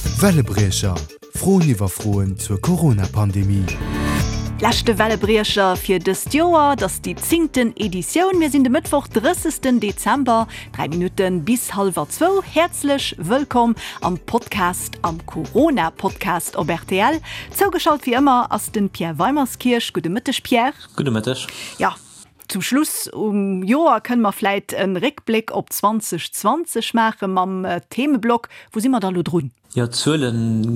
Wellebriecher, Froen iwwer Froen zur Corona-Pandemie. Leschte Wellebriecher fir dëst Joer, et ass déi zéngten Editioun. Mir sinn de Mëttwoch, 30. Dezember, 3 Minutte bis hallwer zwou. Häerzlech wëllkomm am Podcast, am Corona-Podcast op rtl. Zougeschalt wéi ëmmer ass de Pierre Weimerskirch. Gudde Mëtteg, Pierre. Gudde Mëtteg. Jo, Zum Schluss um Joer kënne mer vläit e Réckbléck op 2020 maache mam Themeblock Wou si mer da lo drun? Jo, d'Zuele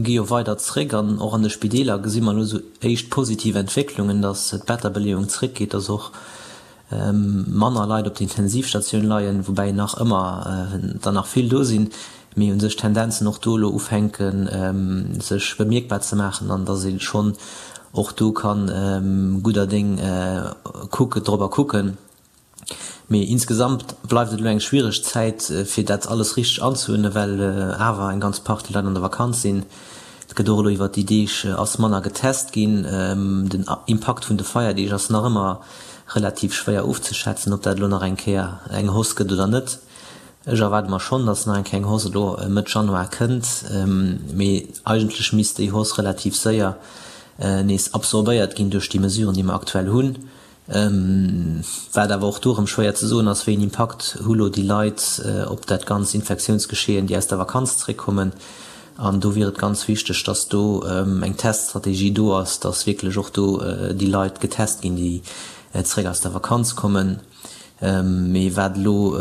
gi jo weider zréck an och an de Spideeler gesi mer elo sou éischt positiv Entwécklungen, datt d'Betterbeleeung zréckgeet, datt och manner Leit op der Intensivstatioun leien, woubäi nach ëmmer der nach vill do sinn, mee u sech d'Tendenzen och do elo ufänken sech bemierkbar ze maachen an datt ee schonn och do ka gudder Déng kucken, dorobber kucken. Mee insgesamt bleift et elo eng schwiereg Zäit, fir dat alles richteg anzeuerdnen, well awer eng ganz Partie Leit an der Vakanz sinn. Et gëtt och elo iwwert déi Deeg ass manner getest ginn. Den Impakt vun de Feierdeeg ass nach ëmmer relativ schwéier ofzeschätzen, ob dat elo nach eng Kéier eng Hausse gëtt oder net. Ech erwaarde mer schonn, datt nach eng kleng Hausse elo Mëtt Januar kënnt, mee eigentlech misst déi Hausse relativ séier nees absorbéiert ginn duerch déi Mesuren, déi mer aktuell hunn. Wat awer och do erëm schwéier ze soen ass, wéi een Impakt hu lo déi Leit op dat ganz Infektiounsgeschehen, déi aus der Vakanz zréckkommen. An do wier et ganz wichteg, datt do eng Teststrategie do ass, datt wierklech och do déi Leit getest ginn, déi zréck aus der Vakanz kommen. Mee wat elo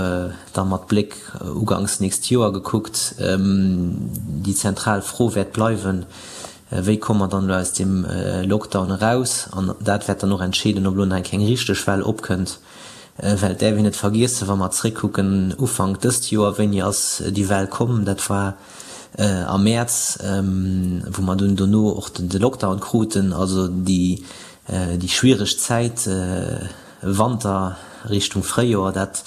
da mat Bléck uganks nächst Joer gekuckt déi zentral Fro wäert bleiwen, Wéi komme mer dann elo aus deem Lockdown eraus? An dat wäert dann och entscheeden, ob elo nach eng keng richteg Well opkënnt. Well et däerf een net vergiessen, wa mer zréckkucken Ufank dëst Joer, wéini ass déi Well komm? Dat war am Mäerz, wou mer dunn dono och de Lockdown kruten, also déi schwiereg Zäit, Wanter Richtung Fréijoer, dat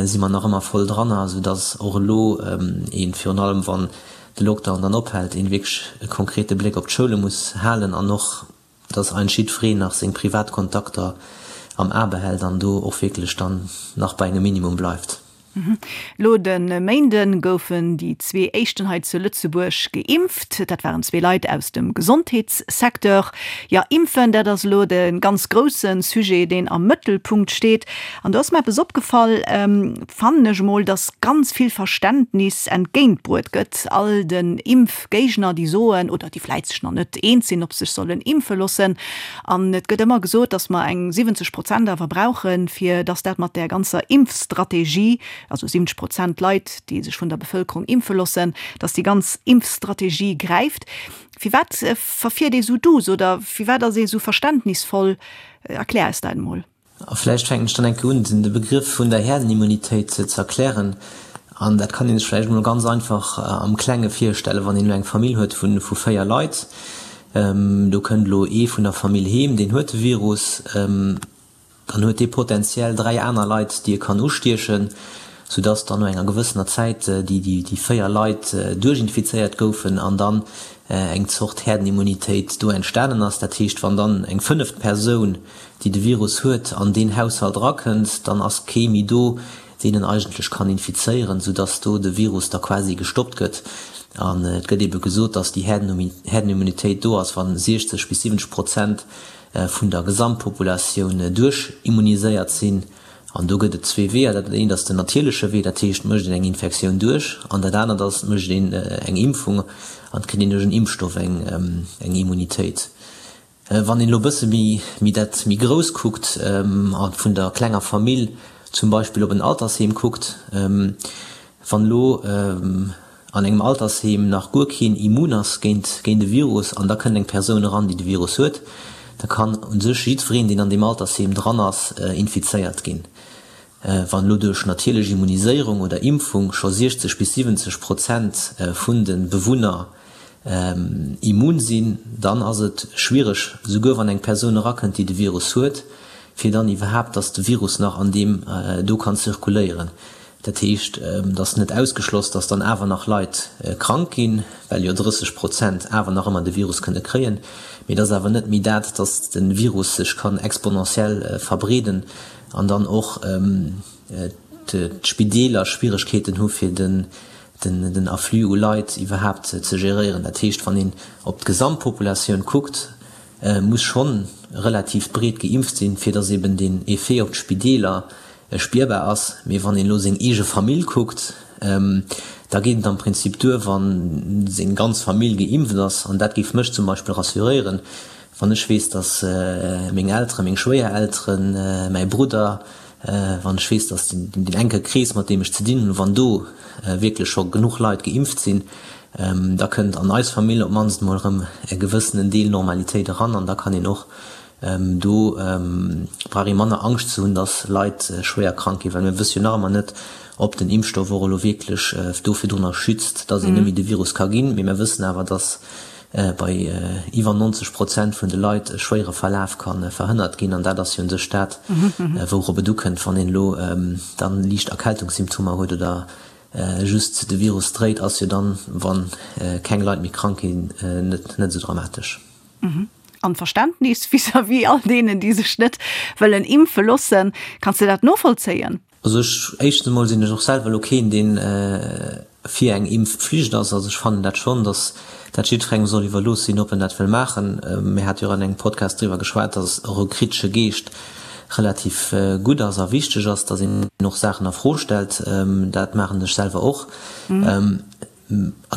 si mer nach ëmmer voll dranner, esou dass och elo een, virun allem wann de Lockdown dann ophält, een wierklech e konkrete Bléck op d'Schoule muss halen an och, dass eigentlech jiddwereen nach seng privat Kontakter am A behält an do och wierklech dann nach bei engem Minimum bleift. Elo de Méinde goufen déi zwee éischten hei zu Lëtzebuerg geimpft. Dat waren zwee Leit aus dem Gesondheetssecteur. Jo, impfen, dat ass elo de ganz grousse Sujet, deen am Mëttelpunkt steet. An do ass mer eppes opgefall, fannen ech emol, datt ganz vill Verständnis entgéintbruet gëtt all den Impfgéigner, déi soen oder déi vläit sech nach net eens sinn, ob se sech sollen impfe loossen. An et gëtt ëmmer gesot, datt mer eng 70 Prozent awer brauchen, fir datt dat mat där ganzer Impfstrategie, also 70 Prozent Leit, déi sech vun der Bevëlkerung impfe loossen, datt déi ganz Impfstrategie gräift. Firwat verfiert ee sou duuss oder firwat ass ee sou verständnisvoll? Erklär eis dat emol. A vläicht fänken ech dann eng Kéier un, de Begrëff vun der Herdenimmunitéit ze erklären. An dat kann ee sech vläicht emol ganz einfach am Klenge virstellen, wann een elo eng Famill huet vu 4 Leit. Do kënnt elo ee vun der Famill heem, deen huet de Virus. Dann huet dee potenziell 3 aner Leit, déi e kann ustiechen, soudass dann no enger gewëssener Zäit déi 4 Leit duerchinfizéiert goufen an dann eng Zort Herdenimmunitéit do entstanen ass. Dat heescht, wann dann eng fënneft Persoun déi de Virus huet, an deen Haushalt erakënnt, dann ass kee méi do, deen en eigentlech kann infizéieren, soudass do de Virus da quasi gestoppt gëtt. An et gëtt ebe gesot, dass déi Herdenimmunitéit do ass, wa 60 bis 70 Prozent vun der Gesamtpopulatioun duerchimmuniséiert sinn. An do gëtt et zwee Weeër. Dat eent ass den natierleche Wee, dat heescht, et mécht een eng Infektioun duerch. An dat anert ass, et mécht een eng Impfung an et kritt een duerch en Impfstoff eng Immunitéit. Wann een elo e bësse méi dat méi grouss kuckt a vun der klenger Famill zum Beispill op en Altersheem kuckt, wann elo an engem Altersheem nach guer keen immun ass géint géint e Virus an da kënnt eng Persoun eran, déi de Virus huet, da kann u sech jiddwereen, deen an deem Altersheem dran ass, infizéiert ginn. Wann elo duerch natierlech Immuniséierung oder Impfung scho 60 bis 70 Prozent vun de Bewunner immun sinn, dann ass et schwiereg, souguer wann eng Persoun erakënnt, déi de Virus huet, fir dann iwwerhaapt, dass de Virus nach an deem do kann zirkuléieren. Dat heescht, et ass net ausgeschloss, dass dann awer nach Leit krank ginn, well jo 30 Prozent awer nach ëmmer de Virus kënne kréien. Mee et ass awer net méi dat, dass de Virus sech kann exponentiell verbreeden an dann och d'Spideeler Schwieregkeeten hu fir den. den Afflux u Leit iwwerhaapt ze geréieren. Dat heescht, wann een op d'Gesamtpopulatioun kuckt, muss schonn relativ breet geimpft sinn, fir datt eben deen Effet op d'Spideeler spierbar ass. Mee wann een elo seng eege Famill kuckt, da geet et am Prinzip duer, wa seng ganz Famill geimpft ass. An dat géif mech zum Beispill rassuréieren, wann ech weess, datt meng Elteren, meng Schwéierelteren, mäi Brudder, wann ech weess, datt deen enke Krees, mat deem ech ze dinn hunn, wann do wierklech scho genuch Leit geimpft sinn, da kënnt an eis Famill op d'mannst emol erëm e gewëssenen Deel Normalitéit eran an da kann een och do brauch ee manner Angscht ze hunn, datt Leit schwéier krank ginn, well mir wësse jo nach ëmmer net, ob den Impfstoff och elo wierklech do virdrunner schützt, datt een net méi de Virus ka ginn. Mee mir wëssen awer, datt bei iwwer 90 Prozent vun de Leit e schwéiere Verlaf ka verhënnert ginn. An dat ass jo un sech dat, wourop et ukënnt, wann een elo dann liicht Erkältungssymptomer huet oder just de Virus dréit, ass jo dann, wa keng Leit méi krank ginn, net esou dramatesch. An Verständnis vis-à-vis all deenen, déi sech net wëllen impfe loossen, kanns de dat novollzéien? Also ech, éischtens emol sinn ech och selwer elo keen, deen fir eng Impfpflicht ass. Also ech fannen dat schonn, datt dat jiddwerengem soll iwwerlooss sinn, ob en dat wëll maachen. Mir hate jo och an engem Podcast driwwer geschwat, datt och e kritesche Geescht relativ gutt ass a wichteg ass, datt een och Saachen a Fro stellt. Dat maachen ech selwer och. An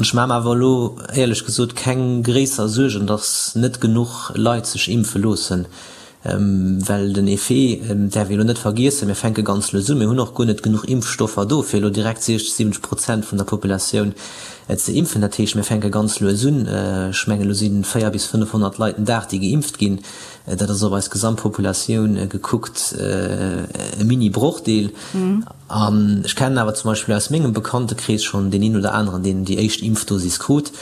ech maache mer awer elo éierlech gesot keng gréisser Suergen, datt net genuch Leit sech impfe loossen, well den Effet däerf ee elo net vergiessen, mir fänke ganz lues un, mir hunn och guer net genuch Impfstoffer do, fir elo direkt 60, 70 Prozent vun der Populatioun ze impfen. Dat heescht, mir fänke ganz lues un. Ech mengen, elo si 400 bis 500 Leit den Dag, déi geimpft ginn. Dat ass op eis Gesamtpopulatioun gekuckt e Mini-Brochdeel. An ech kennen awer zum Beispill aus mengem Bekanntekrees schonn deen een oder aneren, deen déi éischt Impfdosis krut.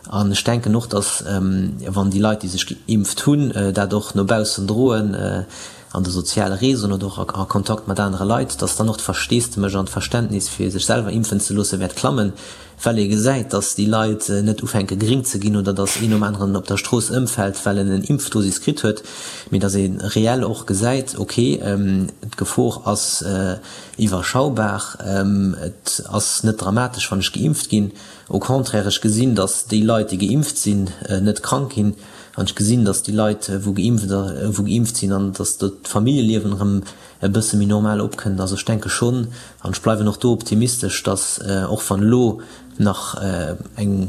An ech denken och, datt, wann déi Leit, déi sech geimpft hunn, dat och no baussen droen, an de soziale Réseauen oder och a Kontakt mat anere Leit, datt dann och d'Versteesdemech an d'Verständnis, fir sech selwer impfen ze loossen, wäert klammen, well ee gesäit, datt déi Leit net ufänke gréng ze ginn oder datt een nom aneren op der Strooss ëmfält, well en en Impfdosis kritt huet, mee datt ee reell och gesäit, ok, d'Gefor ass iwwerschaubar, et ass net dramatesch, wann ech geimpft ginn, au contraire, ech gesinn, datt déi Leit, déi geimpft sinn, net krank ginn an ech gesinn, datt déi Leit, wou geimpft sinn an datt d'Familljeliewen erëm e bësse méi normal opkënnt. Also ech denke schonn, an ech bleiwen och do optimistesch, datt och wann elo nach eng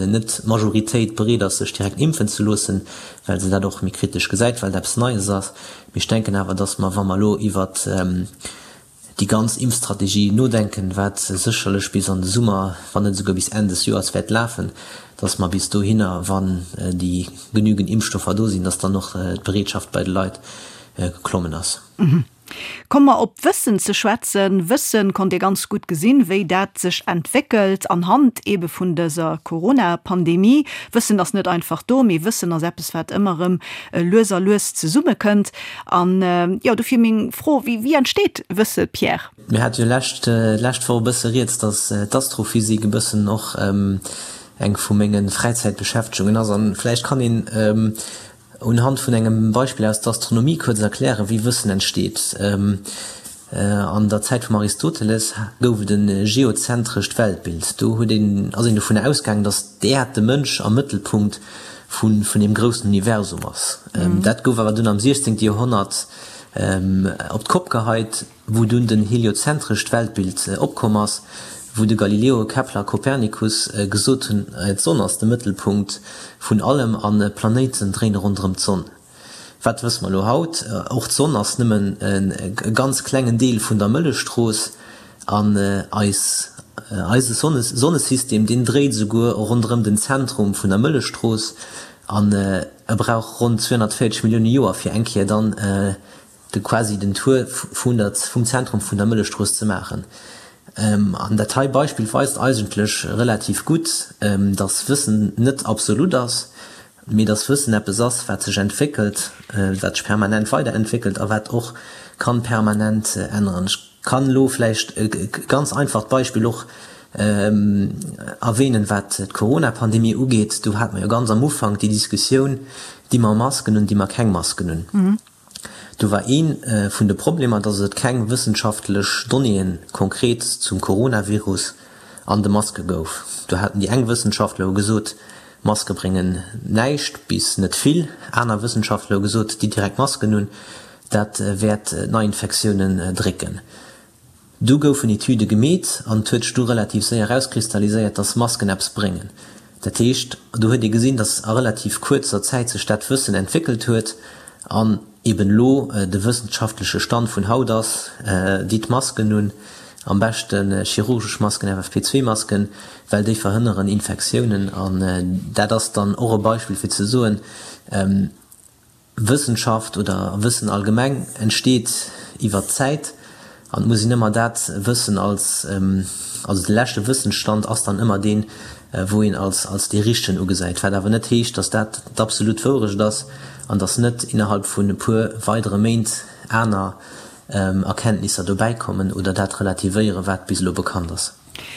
net Majoritéit bereet ass sech direkt impfen ze loossen, well se dat och méi kritesch gesäit, well et eppes Neies ass, mee ech denken awer, datt mer, wa mer elo iwwert déi ganz Impfstrategie nodenken, wat sécherlech bis an de Summer, wann net esouguer bis Enn des Joers wäert lafen, datt mer bis dohinner, wann déi genügend Impfstoffer do sinn, datt dann och d'Bereetschaft bei de Leit geklommen ass. Komme mer op d'Wëssen ze schwätzen. Wëssen konnt ee ganz gutt gesinn, wéi dat sech entwéckelt anhand eebe vun dëser Corona-Pandemie. Wëssen ass net einfach do, mee Wëssen ass eppes, wat ëmmer erëm lues a lues zesummekënnt. An jo, dofir meng Fro, Wéi, wéi entsteet Wësse, Pierre? Mir hate jo lescht, lescht Woch e bësse rieds, datt d'Astrophysik e bëssen och eng vu menge Fräizäitbeschäftegungen ass. An vläicht kann een Unhand vun engem Beispill aus der Astronomie kuerz erklären, wéi Wëssen entsteet. An der Zäit vum Aristoteles gouf et e geozentrescht Weltbild. Do huet een, ass een dovun ausgaangen, datt d'Äerd de Mënsch am Mëttelpunkt vun deem groussen Universum ass. Dat gouf awer dunn am 16. Joerhonnert op d'Kopp geheit. wou dunn den heliozentrescht Weltbild opkomm ass, wou de Galileo, Kepler, Kopernikus gesot hunn, d'Sonn ass de Mëttelpunkt vun allem an d'Planéiten dréine ronderëm d'Sonn. Wat wësse mer elo haut? Och d'Sonn ass nëmmen e ganz klengen Deel vun der Mëllechstrooss an eis eise Sonnesystem, deen dréit esouguer ronderëm den Zentrum vun der Mëllechstrooss an e brauch ronn 240 Millioune Joer fir eng Kéier dann de quasi den Tour vun der, vum Zentrum vun der Mëllechstrooss ze maachen. An dat hei Beispill weist eigentlech relativ gutt, dass Wëssen net absolut ass, mee dass Wëssen eppes ass, wat sech entwéckelt, wat sech permanent weiderentwéckelt a wat och kann permanent änneren. Ech kann elo vläicht e ganz einfacht Beispill och erwähnen, wat d'Corona-Pandemie ugeet. Do hate mer jo ganz am Ufank déi Diskussioun, Di mer Masken un, di mer keng Masken un? Do war ee vun de Problemer, dass et keng wëssenschaftlech Donnéeë konkret zum Coronavirus. an de Maske gouf. Do haten déi eng Wëssenschaftler hu gesot, Maske bréngen näischt bis net vill. Aner Wëssenschaftler hu gesot, déi direkt Masken un, dat wäert d'Neiinfektiounen drécken. Du goufen Etüde gemeet an et huet sech du relativ séier erauskristalliséiert, dass Masken eppes bréngen. Dat heescht, do huet ee gesinn, dass a relativ kuerzer Zäit sech dat Wëssen entwéckelt huet an eben elo de wëssenschaftleche Stand vun haut ass, Ditt Masken un, am beschte chirurgesch Masken, FFP2-Masken, well déi verhënneren Infektiounen. An dat ass dann och e Beispill fir ze soen, Wëssenschaft oder Wëssen allgemeng entsteet iwwer d'Zäit an et muss een ëmmer dat Wëssen als, also de leschte Wëssensstand ass dann ëmmer deen, wou een als als dee richtegen ugesäit, wat awer net heescht, datt dat d'absolut Wourecht ass an datt net innerhalb vun e puer weidere Méint aner Erkenntnisser dobäikommen oder dat relativéieren, wat bis elo bekannt ass.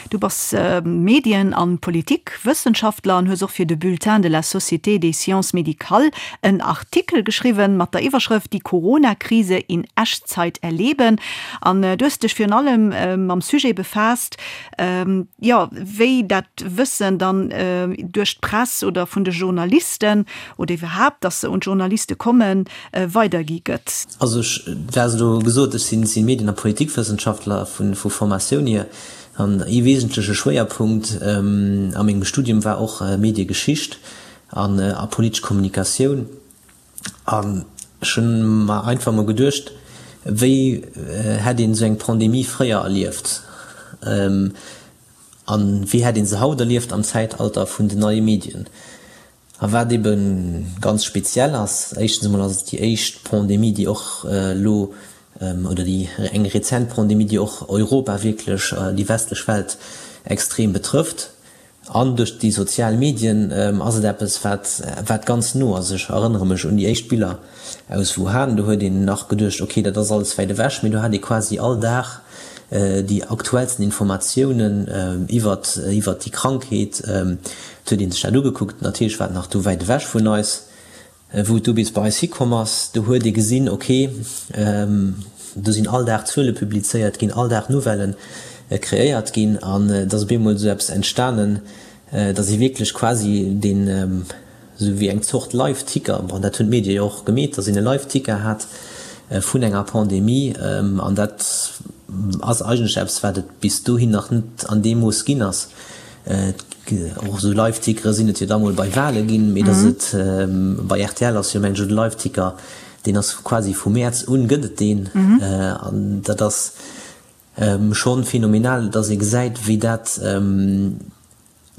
Du bass Medien an Politikwëssenschaftler an hues och fir de Bulletin de la Société des Sciences Médicales en Artikel geschriwwen mat der Iwwerschrëft Die Corona-Krise in Echtzeit erleben. An du hues dech virun allem mam Sujet befaasst, jo, wéi dat Wëssen dann duerch d'Press oder vun de Journalisten oder iwwerhaapt, dass se un d'Journaliste kommen, weidergi gëtt. Also ech, du has elo gesot, ech sinn Medien a Politikwëssenschaftler vu Formatioun hier. An ee wesentleche Schwéierpunkt a mengem Studium war och Mediegeschicht an a politesch Kommunikatioun. An ech hunn mer einfach mol geduecht, wéi hätt een esou eng Pandemie fréier erlieft? A wéi hätt ee se haut erlieft am Zäitalter vun den neie Medien? A wat ebe ganz speziell ass, éischtens emol ass et déi éischt Pandemie, déi och elo, oder déi eng rezent Pandemie, déi och Europa wierklech, déi westlech Welt extrem betrëfft. An duerch déi sozial Medien ass et eppes, wat, wat ganz no ass. Ech erënnere mech un déi éischt Biller aus Wuhan, do huet een nach geduecht, okay, dat ass alles wäit ewech, mee do hat ee quasi all Dag déi aktuellsten Informatiounen iwwert iwwert déi Krankheet. Et huet ee sech dat ugekuckt, natierlech war et nach do wäit ewech vun eis. Wou et du bis bei eis hikomm ass, do huet ee gesinn, okay, do sinn all Dag Zuele publizéiert ginn, all Dag Nouvellë kreéiert ginn an et ass op eemol esou eppes entstanen, datt ee wierklech quasi deen, esou wéi eng Zort Live-Ticker, bon dat hunn d'Medie jo och gemeet, datt een e Live-Ticker hat vun enger Pandemie an dat ass eigentlech eppes, wat et bis dohin nach net an deem Mooss ginn ass. Och esou Live-Tickere sinn et jo da mol bei Wale ginn, mee datt et bei rtl ass jo mengen ech de Live-Ticker, deen ass quasi vu Mäerz un gëtt et deen an dat ass schonn phänomenal, datt ee gesäit wéi dat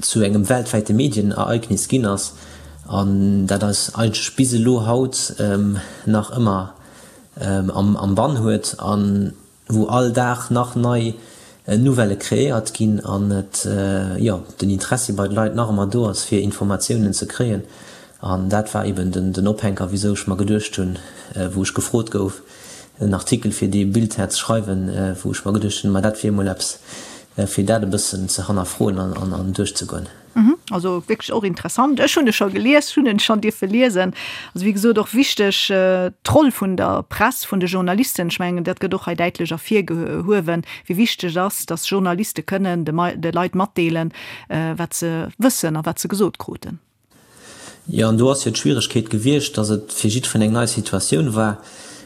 zu engem weltwäite Medienereignis ginn ass an dat eis eigentlech bis elo haut nach ëmmer am Bann huet a wou all Dag nach nei Nouvellë kreéiert ginn an et, jo, den Interessi bei de Leit nach ëmmer do ass fir Informatiounen ze kréien. An dat war eben den Ophänker, wisou ech mer geduecht hunn, wou ech gefrot gouf, en Artikel fir dee Bulletin ze schreiwen, wou ech mer geduecht hunn, ma dat wier emol eppes, fir dat e bëssen ze hannerfroen an duerchzegoen. Also wierklech och interessant. Ech hunn e scho gelies, hunn en schonn dierfe liesen. Also wéi gesot och wichteg d'Roll vun der Press, vun de Journalisten. Ech mengen, dat gëtt och hei däitlech ervirgehuewen, wéi wichteg et ass, datt Journaliste kënnen de Leit matdeelen, wat se wëssen a wat se gesot kruten. Jo, an do ass jo d'Schwieregkeet gewiescht, datt et fir jiddwereen eng nei Situatioun war.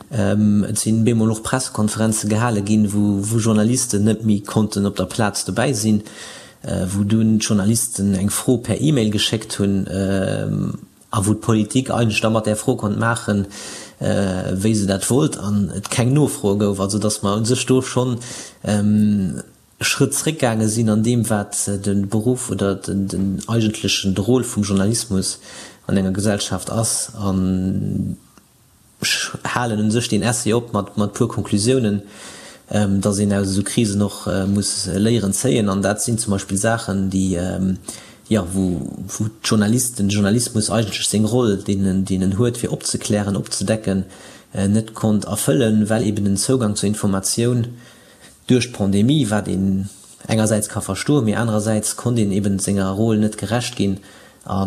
Et sinn bemol och Pressekonferenze gehale ginn, wou Journalisten net méi konnten op der Plaz dobäi sinn, wou dunn d'Journalisten eng Fro per E-Mail geschéckt hunn a wou d'Politik eigentlech da mat där Fro konnt maachen, wéi se dat wollt an et keng Nofroe gouf. Also datt mer u sech do schonn Schrëtt zréckgaange sinn an deem, wat de Beruff oder den eigentlechen de Rôle vum Journalismus an enger Gesellschaft ass. An ech halen u sech deen Essay op mat e puer Konklusiounen, dass een aus esou Krisen och muss Léieren zéien. An dat sinn zum Beispill Saachen, déi, jo, wou d'Journalisten, de Journalismus eigentlech seng Roll, deen en huet, fir opzeklären, opzedecken, net konnt erfëllen, well eben den Zougang zur Informatioun Duerch d'Pandemie, wat een engersäits ka verstoen, mee anerersäits konnt een eben senger Rôle net gerecht ginn a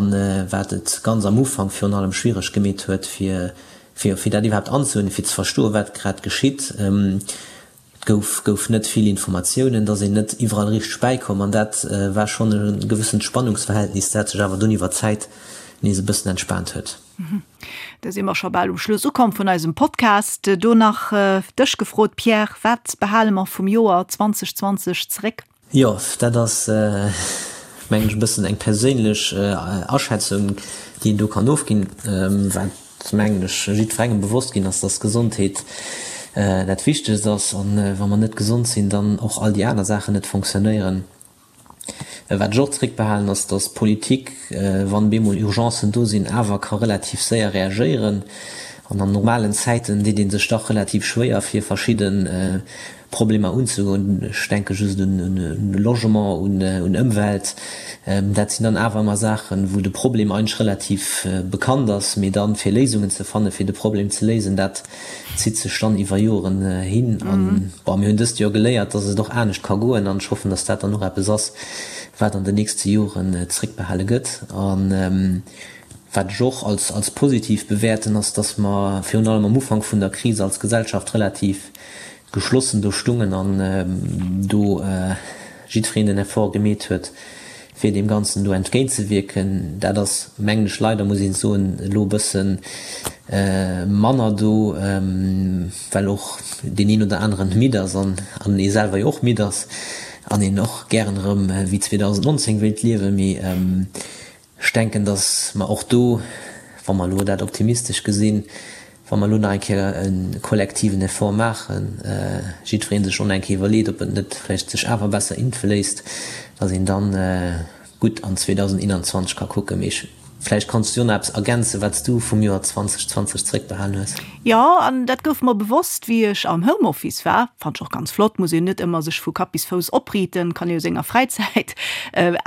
wat et ganz am Ufank virun allem schwiereg gemeet huet, fir fir dat iwwerhaapt anzehuelen, fir ze verstoen, wat grad geschitt. Gouf gouf net vill Informatiounen, et ass een net iwwerall richteg bäikomm an dat war schonn e gewëssent Spannungsverhältnis, dat sech awer dunn iwwer d'Zäit nees e bëssen entspaant huet. Da si mer scho bal um Schluss ukomm vun eisem Podcast. Do nach dech gefrot, Pierre, wat behale mer vum Joer 2020 zeréck? Jo, dat ass, mengen ech, e bëssen eng perséinlech Aschätzung, déi een do kann ofginn. Wat, mengen ech, jiddwerengem bewosst ginn ass, dass Gesondheet dat Wichtegst ass an wa mer net gesond sinn, dann och all déi aner Saachen net fonctionnéieren. Wat ech och zréckbehalen, ass, dass d'Politik, wann bemol Urgencen do sinn, awer ka relativ séier reagéieren. An an normalen Zäiten deet ee sech dach relativ schwéier, fir verschidde Problemer unzegoen. Ech denke just un Logement, un Ëmwelt. Dat sinn dann awer ëmmer Saachen, wou de Problem eigentlech relativ bekannt ass, mee dann, fir Léisungen ze fannen, fir de Problem ze léisen, dat zitt sech dann iwwer Joren hin. An, bon, mir hunn dëst Joer geléiert, dass et och anescht ka goen. An ech hoffen, dass dat dann och eppes ass, wat an den nächste Joren zréckbehale gëtt. An wat ech och als positiv bewäerten, ass, dass mer virun allem am Ufank vun der Kris als Gesellschaft relativ geschlossen do stungen an do jiddwereen den Effort gemeet huet, fir deem Ganzen do entgéintzewierken. Dat ass, mengen ech, leider muss een soen, elo e bësse manner do, well och deen een oder aneren midd ass an ee selwer jo och midd ass an een och gären erëm wéi 2019 wéilt liewen. Mee Ech denken, datt mer och do, wa mer elo dat optimistesch gesinn, wa mer elo nach eng Kéier e kollektiven Effort maachen, jiddweree sech och nach eng Kéier iwwerleet, ob et net vläicht sech awer besser impfe léisst, datt een dann gutt an 2021 ka kucken. Mee ech, vläicht kanns du jo nach eppes ergänzen, wat s du vum Joer 2020 zréckbehalen hues. Jo, an dat gouf mer bewosst, wéi ech am Homeoffice war. Fannt ech och ganz flott, muss een net ëmmer sech vu Kapp bis Fouss opriiten, kann ee jo senger Fräizäit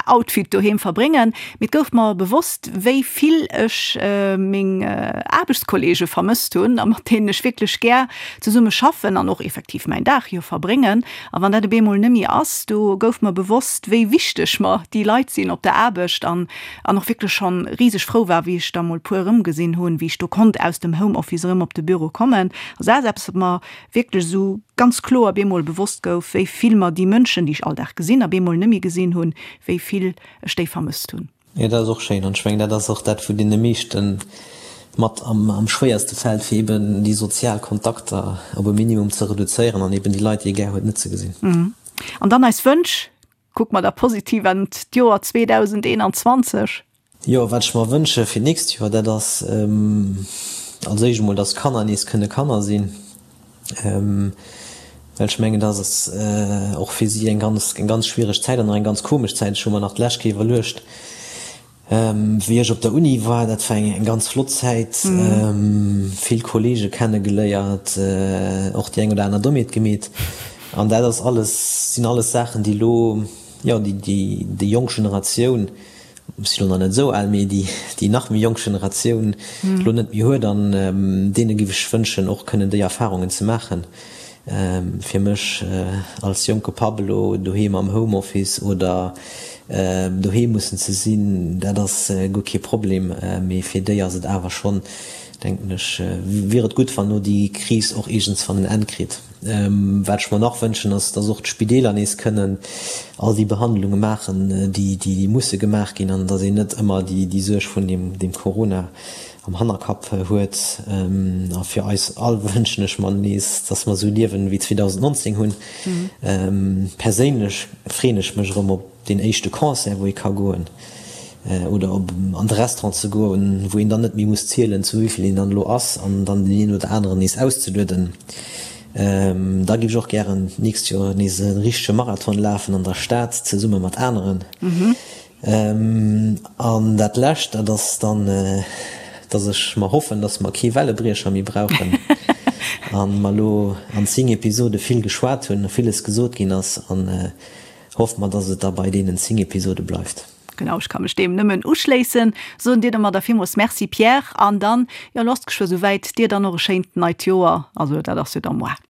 Outfit doheem verbréngen. Mee et gouf mer bewosst, wéi vill ech meng Aarbechtskollege vermësst hunn a mat deenen ech wierklech gär zesumme schaffen an och effektiv mäin Dag jo verbréngen. A wann dat op eemol net méi ass, do gouf mer bewosst, wéi wichteg mer déi Leit sinn op der Aarbecht an an och wierklech schonn riseg frou war, wéi ech da mol puer erëmgesinn hunn, wéi ech do konnt aus dem Homeoffice erëm op de Büro kommen. Also dat ass eppes, wat mer wierklech esou ganz kloer bemol bewosst gouf, wéi vill mer déi Mënschen, déi ech all Dag gesinn a bemol net méi gesinn hunn, wéi vill ech déi vermësst hunn. Jo, dat ass och schéin an ech mengen, dat ass och dat, wou deene meeschte mat am schwéierste fält, fir eben déi sozial Kontakter op e Minimum ze reduzéieren an eben déi Leit, déi ee gär huet, net ze gesinn. An dann eis Wënsch, Kucke mer da positiv an d'Joer 2021. Jo, wat ech mer wënsche fir d'nächst Joer, dat ass als éischt emol, dass d'Kanner nees kënne Kanner sinn, well ech mengen, dass ass och fir si eng ganz, eng ganz schwiereg Zäit an och eng ganz komesch Zäit. Ech hu mer nach d'lescht Kéier iwwerluecht, Wéi ech op der Uni war, dat war eng ganz flott Zäit, vill Kollege kenne geléiert, och déi eng oder aner Dommheet gemeet. An dat ass alles, sinn alles Saachen, déi elo, jo, déi déi jonk Generatioun, ech sinn elo nach net esou al, mee déi déi nach méi jonk Generatioun elo net méi huet. An deene géif ech wënschen, och kënnen déi Erfarungen ze maachen. Fir mech als jonke Papp elo doheem am Homeoffice oder doheem mussen ze sinn, dat ass guer kee Problem, mee fir déi ass et awer schonn, denken ech, wier et gutt, wann elo déi Kris och iergendswann en Enn kritt. Wat ech mer nach wënschen, ass, dass och d'Spideeler nees kënnen all déi Behandlunge maachen, déi musse gemaach ginn, an dass een net ëmmer déi Suerg vun deem Corona am Hannerkapp huet. A fir eis all wënschen ech mer nees, dass mer esou liewen wéi 2019 hunn. Perséinlech freeën ech mech erëm op deen éischte Concert, wou ee ka goen, oder op an de Restaurant ze goen, wou een dann net méi muss zielen, zu wéi vill een dann elo ass, an dann deen een oder aneren nees auszelueden. Da géif ech och gären d'nächst Joer nees e richtege Marathon lafen an der Stad zesumme mat aneren. An dat Lescht, dat ass dann, dass ech mer hoffen, dass mer kee Wellebriecher méi brauchen a mer elo an 10 Episode vill geschwat hunn, villes gesot ginn ass an hoffe mer, dass et da bei deenen 10 Episode bleift. Genau, ech ka mech deem nëmmen uschléissen. Soen dir domadder villmools Merci Pierre an dann, jo, elo ass et geschwë souwäit, dir dann och e schéint neit Joer, also dat ass jo da moar.